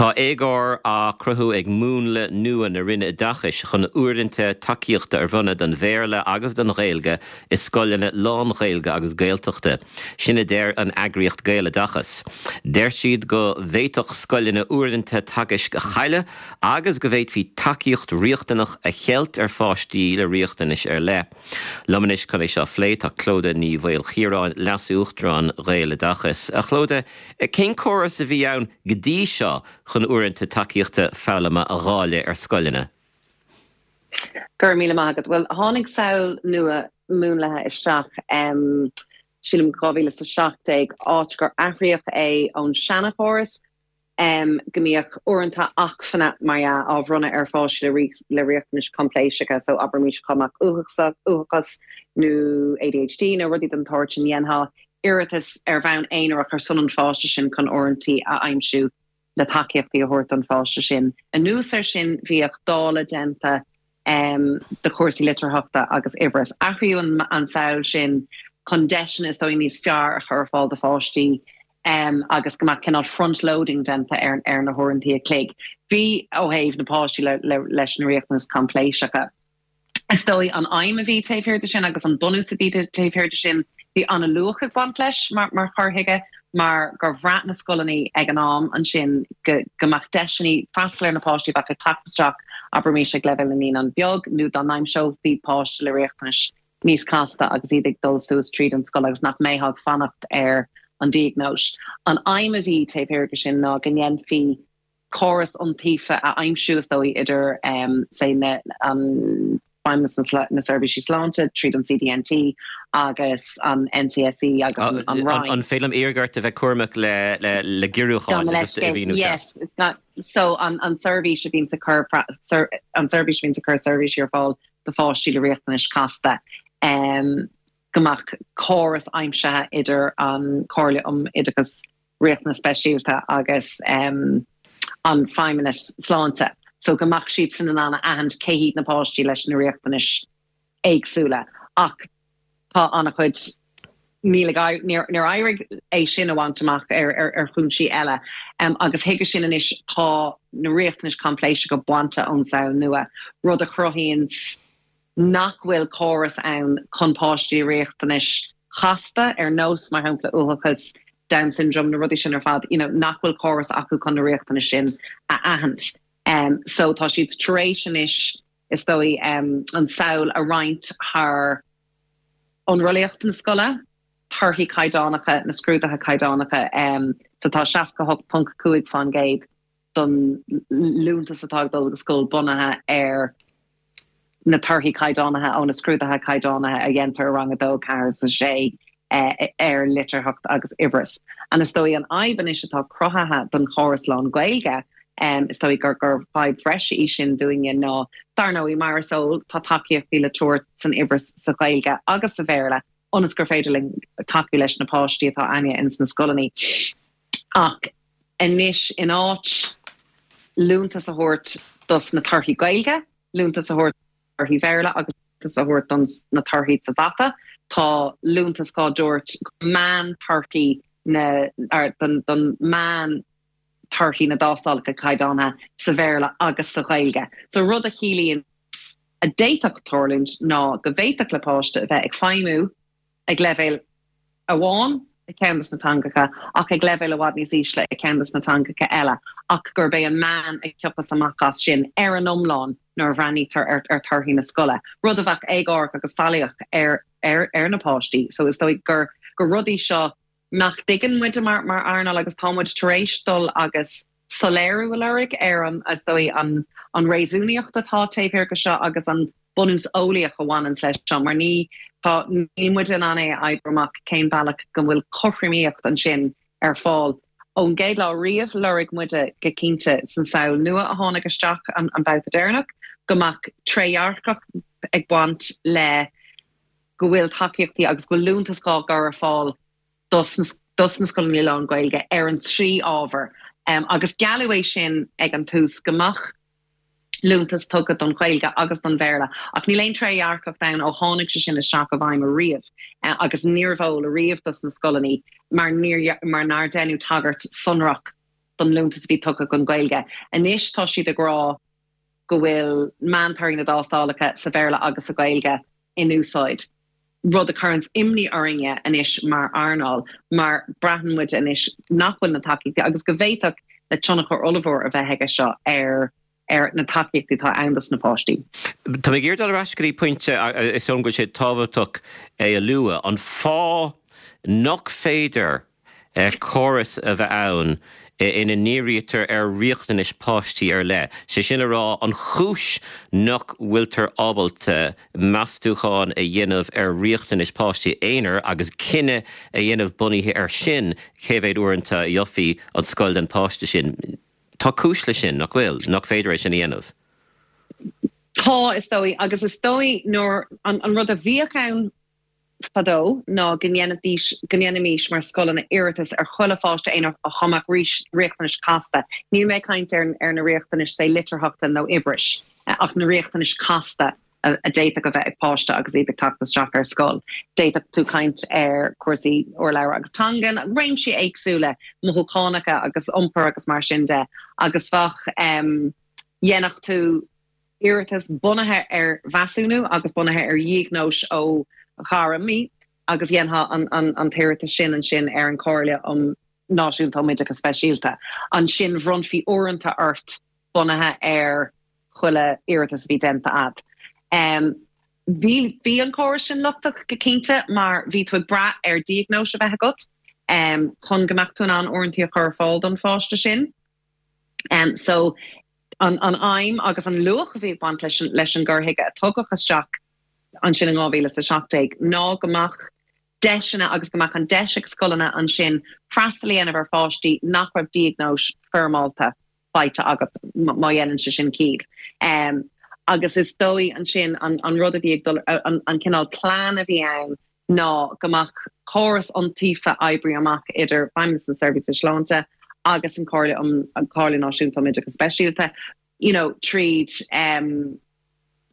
Tá éagóir á cruthú ag múnla nua na Roinne Oideachais chun uaireanta tacaíochta a bhronnadh don Bhéarla agus don Ghaeilge i scoileanna lán-Ghaeilge agus Gaeltachta. Sin a deir an eagraíocht Gaeloideachas. Deir siad go bhféadfadh scoileanna uaireanta teagaisc a chailleadh agus go bhféadfaí tacaíocht riachtanach a cheilt ar pháistí le riachtanais ar leith. Liom anois chun é seo a phlé tá Clodagh Ní Mhaoilchiaráin, Leas-Uachtarán Ghaeloideachas. A Chlodagh, cén córas a bhí ann go dtí seo chun uaireanta tacaíochta foghlama a dháileadh ar scoileanna? Go raibh míle maith agat. Bhuel, tháinig samhail nua múnlaithe isteach, sílim 2017, áit gur athraíodh é ón seanchóras go mbíodh uaireanta acmhainne, mar dhea, á bhronnadh ar pháistí le riachtanais choimpléiseacha, so abraimis dá mbeadh uathachas nó ADHD nó rudaí den tsórt sin, dhéanfá iarratas ar bhonn aonarach ar son an pháiste sin chun uaireanta a aimsiú le tacaíochtaí a thabhairt don pháiste sin. Anuas air sin, bhíodh dáileadh déanta de chúrsaí litearthachta agus uimhreas. Athraíodh an tsamhail sin chun deiseanna is dóigh níos fearr a chur ar fáil do pháistí agus go mbeadh cineál front-loading déanta ar na huaireanta a chloig. Bhí ó thaobh na páistí leis na riachtanais choimpléiseacha. Is dóigh an aidhm a bhí taobh thiar de sin agus an bunús a bhí taobh thiar de sin, bhí an-luach ag baint leis mar chur chuige mar gur bhraith na scoileanna ag an am ansin go go mbeadh deiseanna freastal ar na páistí a bheadh ag teacht isteach, abraimis ag leibhéal na naíonán beag nó dá n-aimseofaí páiste le riachtanais níos casta agus iad ag dul suas tríd an scoil agus nach mbeifeá ag fanacht ar an diagnóis. An aidhm a bhí taobh thiar de sin ná go ndéanfaí córas iontaofa a aimsiú, is dóigh, idir, say, na, an Feidhmeannas na Seirbhísí Sláinte tríd an CDNT agus an NCSE agus an Roinn. An féidir liom iarraidh ort a bheith cúramach le le giorrúcháin agus a mhíniú seo? Yes, so an an seirbhís a bhíonns ag cur an seirbhís a bhíonns ag cur seirbhísí ar fáil do pháistí le riachtanais chasta, go mbeadh córas aimsithe idir an Chomhairle um Oideachas Riachtanas Speisialta agus an Feidhmeannas Sláinte so go mbeadh siadsan in ann a aithint cé hiad na páistí leis na riachtanais éagsúla. Ach tá an-chuid, níl ag, níor éirigh é sin a bhaint amach ar chúinsí eile. Agus chuige sin anois tá na riachtanais choimpléiseacha bainte ón samhail nua, rud a chruthaíonn nach bhfuil córas ann chun páistí le riachtanais chasta, ar nós, mar shampla, uathachas, Down syndrome, na rudaí sin ar fad, you know, nach bhfuil córas acu chun na riachtanais sin a aithint. So tá siad tar éis anois, is dóigh, an tsamhail a roinnt thar ionrollaíocht na scoile, torthaí caighdeánacha, na scrúduithe caighdeánacha. So tá 68.5% don liúntas atá ag dul go scoil bunaithe ar na torthaí caighdeánaithe ó na scrúduithe caighdeánaithe a dhéantar i rang 2, 4 is 6 ar litearthacht agus uimhreas. And is dóigh an fhadhb anois atá cruthaithe don chóras lán-Ghaeilge, is dóigh gur gur fadhb bhreise í sin dúinne ná, dar ndóigh, mar is eol, tá tacaíochtaí le tabhairt san uimhreas sa Ghaeilge agus sa Bhéarla ionas gur féidir linn tacú leis na páistí atá againne ins na scoileanna. Ach anois, in áit liúntas a thabhairt dos na torthaí Gaeilge, liúntas a thabhairt do thorthaí Bhéarla agus liúntas a thabhairt dos na torthaí sa mhata, tá liúntas á dtabhairt do mheán-torthaí na, don meán torthaí na dtástálacha caighdeánaithe sa Bhéarla agus sa Ghaeilge. So rud a chiallaíonn a d'fhéadfadh tarlúint ná go bhféadfadh le páiste a bheith ag feidhmiú ag leibhéal amháin i gceann de na teangacha ach ag leibhéal i bhfad níos ísle i gceann de na teangacha eile ach gurb é an meán a thiocfas amach as sin ar an iomlán nuair a bhreathnaítear ar thorthaí na scoile, rud a bheadh éagórach agus faillíoch ar ar na páistí. So is dóigh gur gur rudaí seo nach dtuigeann muide mar mar earnáil agus tá muid tar éis dul agus soiléiriú a lorg ar an, is dóigh, an an réasúnaíocht atá taobh thiar de seo agus an bunús eolaíoch a bhaineanns leis seo mar ní, tá, níl muid in ann é a oibriú amach cén bealach go bhfuil cothromaíocht ansin ar fáil. Ón gcéad lá riamh, lorg muide go cinnte san samhail nua a tháinig isteach an an babhta deireanach go mbeadh trédhearcacht ag baint le go bhfuil tacaíochtaí agus go bhfuil liúntas á gcur ar fáil dos na scoileanna lán-Ghaeilge ar an trí ábhar agus gealladh é sin ag an tús go mbeadh liúntas tugtha don Ghaeilge agus don Bhéarla ach níl aon trédhearcacht ann ó tháinig sé sin isteach i bhfeidhm ariamh agus níorbh eol ariamh dos na scoileanna mar níor mar nár deineadh tagairt sonrach. don liúntas a bhí tugtha don Ghaeilge. Anois tá siad ag rá go bhfuil meántorthaí na dtástálacha sa Bhéarla agus sa Ghaeilge in úsáid, rud a chuireanns imní orainne anois mar earnáil mar braitheann muid anois nach bhfuil na tacaíochtaí agus go bhféadfadh le tionchar ollmhór a bheith aige seo ar ar na tacaíochtaí atá ann dos na páistí. Tá mé ag iarraidh dul ar ais go dtí pointe, is dóigh liom go bhfuil sé tábhachtach é a lua, an fáth nach féidir córas a bheith ann ina ndírítear ar riachtanais páistí ar leith, sé sin le rá, an chúis nach bhfuiltear ábalta meastúchán a dhéanamh ar riachtanais páistí aonair agus cinneadh a dhéanamh bunaithe air sin cé mhéad uaireanta a gheofaí an scoil don pháiste sin. Tá cúis leis sin, nach bhfuil? Nach féidir é sin a dhéanamh? Tá, is dóigh, agus is dóigh nuair, an rud a bhíodh ann fadó ná go ndéanfaidís, go ndéanfaimis mar scoileanna iarratas ar chuile pháiste aonair dá mbeadh riachtanais casta. Níl mé ag caint ar ar na riachtanais, say, litearthachta nó uimhris, ach na riachtanais casta a d'fhéadfadh a bheith ag páiste agus iad ag teacht isteach ar scoil. D'fhéadfadh tú caint ar chúrsaí urlabhra agus teangan, réimsí éagsúla, mothúchánacha agus iompar agus mar sin de, agus bheadh, dhéanfadh tú iarratas bunaithe ar mheasúnú agus bunaithe ar dhiagnóis ó ghairmí agus dhéanfá an t-iarratas sin ansin ar an Chomhairle um Náisiúnta um Oideachas Speisialta. Ansin bhronnfaí uaireanta ort bunaithe ar chuile iarratas a bhí déanta a'd. Bhí bhí an córas sin lochtach go cinnte mar bhí tú ag brath ar diagnóis a bheith agat chun go mbeadh tú in ann uaireanta a chur ar fáil don pháiste sin. So an an aidhm agus an luach a bhí ag baint leis an leis an gcur chuige a tugadh isteach ansin in 2017 ná go mbeadh deiseanna agus go mbeadh an deis ag scoileanna ansin freastal a dhéanamh ar pháistí nach raibh diagnóis foirmeálta faighte agat, má dhéanann sé sin ciall. Agus is dóigh ansin an rud a bhí ag dul, an cineál plean a bhí ann ná go mbeadh córas iontaofa oibrithe amach idir Feidhmeannas na Seirbhíse Sláinte agus an Chomhairle um, an Chomhairle Náisiúnta um Oideachas Speisialta, you know, tríd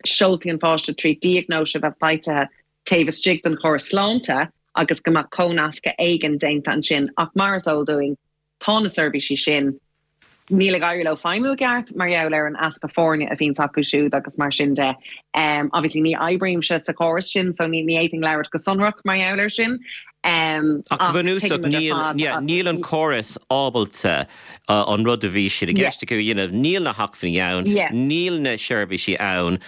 seoltaí an pháiste, tríd diagnóis a bheith faighte taobh istigh den chóras sláinte agus go mbeadh comhnascadh éigin déanta ansin. Ach mar is eol dúinn, Tá na seirbhísí sin, níl ag éirí leo feidhmiú i gceart mar gheall ar an easpa foirne a bhíonns acu siúd agus mar sin de. Obviously ní oibrímse sa chóras sin so ní fhéadfainn labhairt go sonrach mar gheall air sin. Ach go bunúsach níl, níl an córas ábalta an rud a bhí siad i gceist acu a dhéanamh, níl na hacmhainní ann, níl na seirbhísí ann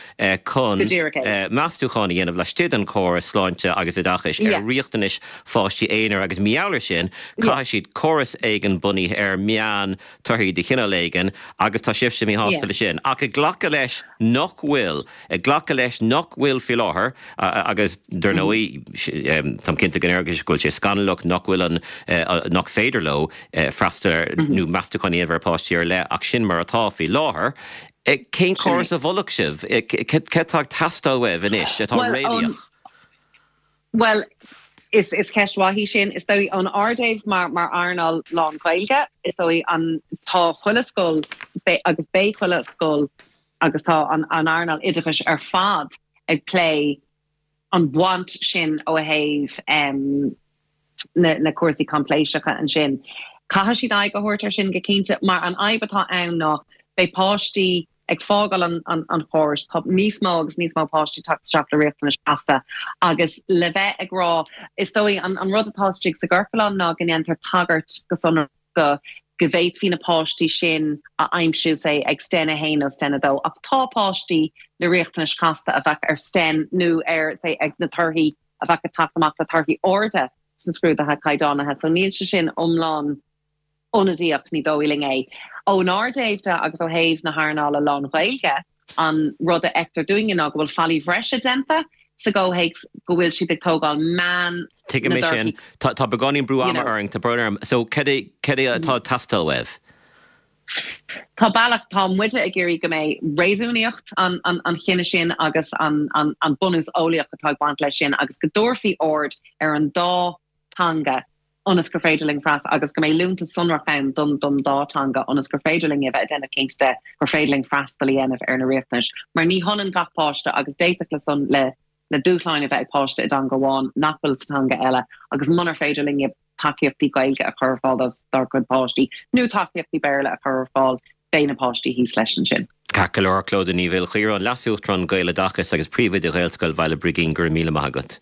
chun meastúchán a dhéanamh laistigh den chóras sláinte agus oideachais ar riachtanais pháistí aonair agus mar gheall air sin caithfidh siad córas éigin bunaithe ar meán torthaí de chineál éigin agus tá sibhse míshásta leis sin. Ach ag glacadh leis nach bhfuil, ag glacadh leis nach bhfuil faoi láthair agus dar ndóigh táim cinnte go ndéarfaidh go bhfuil sé scannalach nach bhfuil an, nach féidir leo freastal ar nó meastúchán a dhéanamh ar pháistí ar leith ach sin mar atá faoi láthair. Cén córas a mholfadh sibh? Cad atá ag teastáil uaibh anois atá réalaíoch? Bhuel, is is ceist mhaith í sin. Is dóigh ón ár dtaobh mar mar earnáil lán-Ghaeilge, is dóigh an tá chuile scoil agus beidh chuile scoil agus tá an an earnáil oideachais ar fad ag plé an bhaint sin ó thaobh na na cúrsaí coimpléiseacha ansin. Caithfidh siad aghaidh a thabhairt air sin go cinnte mar an fhadhb atá ann ná beidh páistí ag fágáil an chórais, tá níos mó agus níos mó páistí ag teacht isteach le riachtanais chasta agus le bheith ag rá, is dóigh an rud atá istigh sa gciorclán ná go ndéantar tagairt go sonrach go go bhféadfaí na páistí sin a aimsiú, say, ag Sten 1 nó Sten 2, ach tá páistí le riachtanais chasta a bheadh ar Sten nó ar, say, ag na torthaí a bheadh ag teacht amach le torthaí arda sna scrúduithe caighdeánaithe, so níl sé sin iomlán. ionadaíoch, ní dóigh linn é. Ónár dtaobh de agus ó thaobh na hearnála lán-Ghaeilge, an rud a fheictear dúinne ná go bhfuil faillí bhreise déanta sa gcomhthéacs go bhfuil siad ag tógáil meán Tuigim na é sin. dtorthaí. Tá tá beagáinín brú ama orainn, tá brón orm. So cad é cad é atá ag teastáil uaibh? Tá bealach, tá muide ag iarraidh go mbeidh réasúnaíocht an an an chinnidh sin agus an an an bunús eolaíoch atá ag baint leis sin agus go dtabharfaí aird ar an dá teanga ionas gur féidir linn freastal agus go mbeidh liúntas sonrach ann don don dá teanga ionas gur féidir linn a bheith ag déanamh cinnte de gur féidir linn freastal a dhéanamh ar na riachtanais mar ní hionann gach páiste agus d'fhéadfadh le son le le dúshláin a bheith ag páiste i dteanga amháin nach bhfuil sa teanga eile agus munar féidir linn. tacaíochtaí Gaeilge a chur ar fáil dár gcuid páistí nó tacaíochtaí Béarla a chur ar fáil, beidh na páistí thíos leis ansin. Ceart go leor, Clodagh Ní Mhaoilchiaráin, Leas-Uachtarán Gaeloideachas agus Príomhoide Ghaelscoil Bhaile Brigín, go raibh míle maith agat.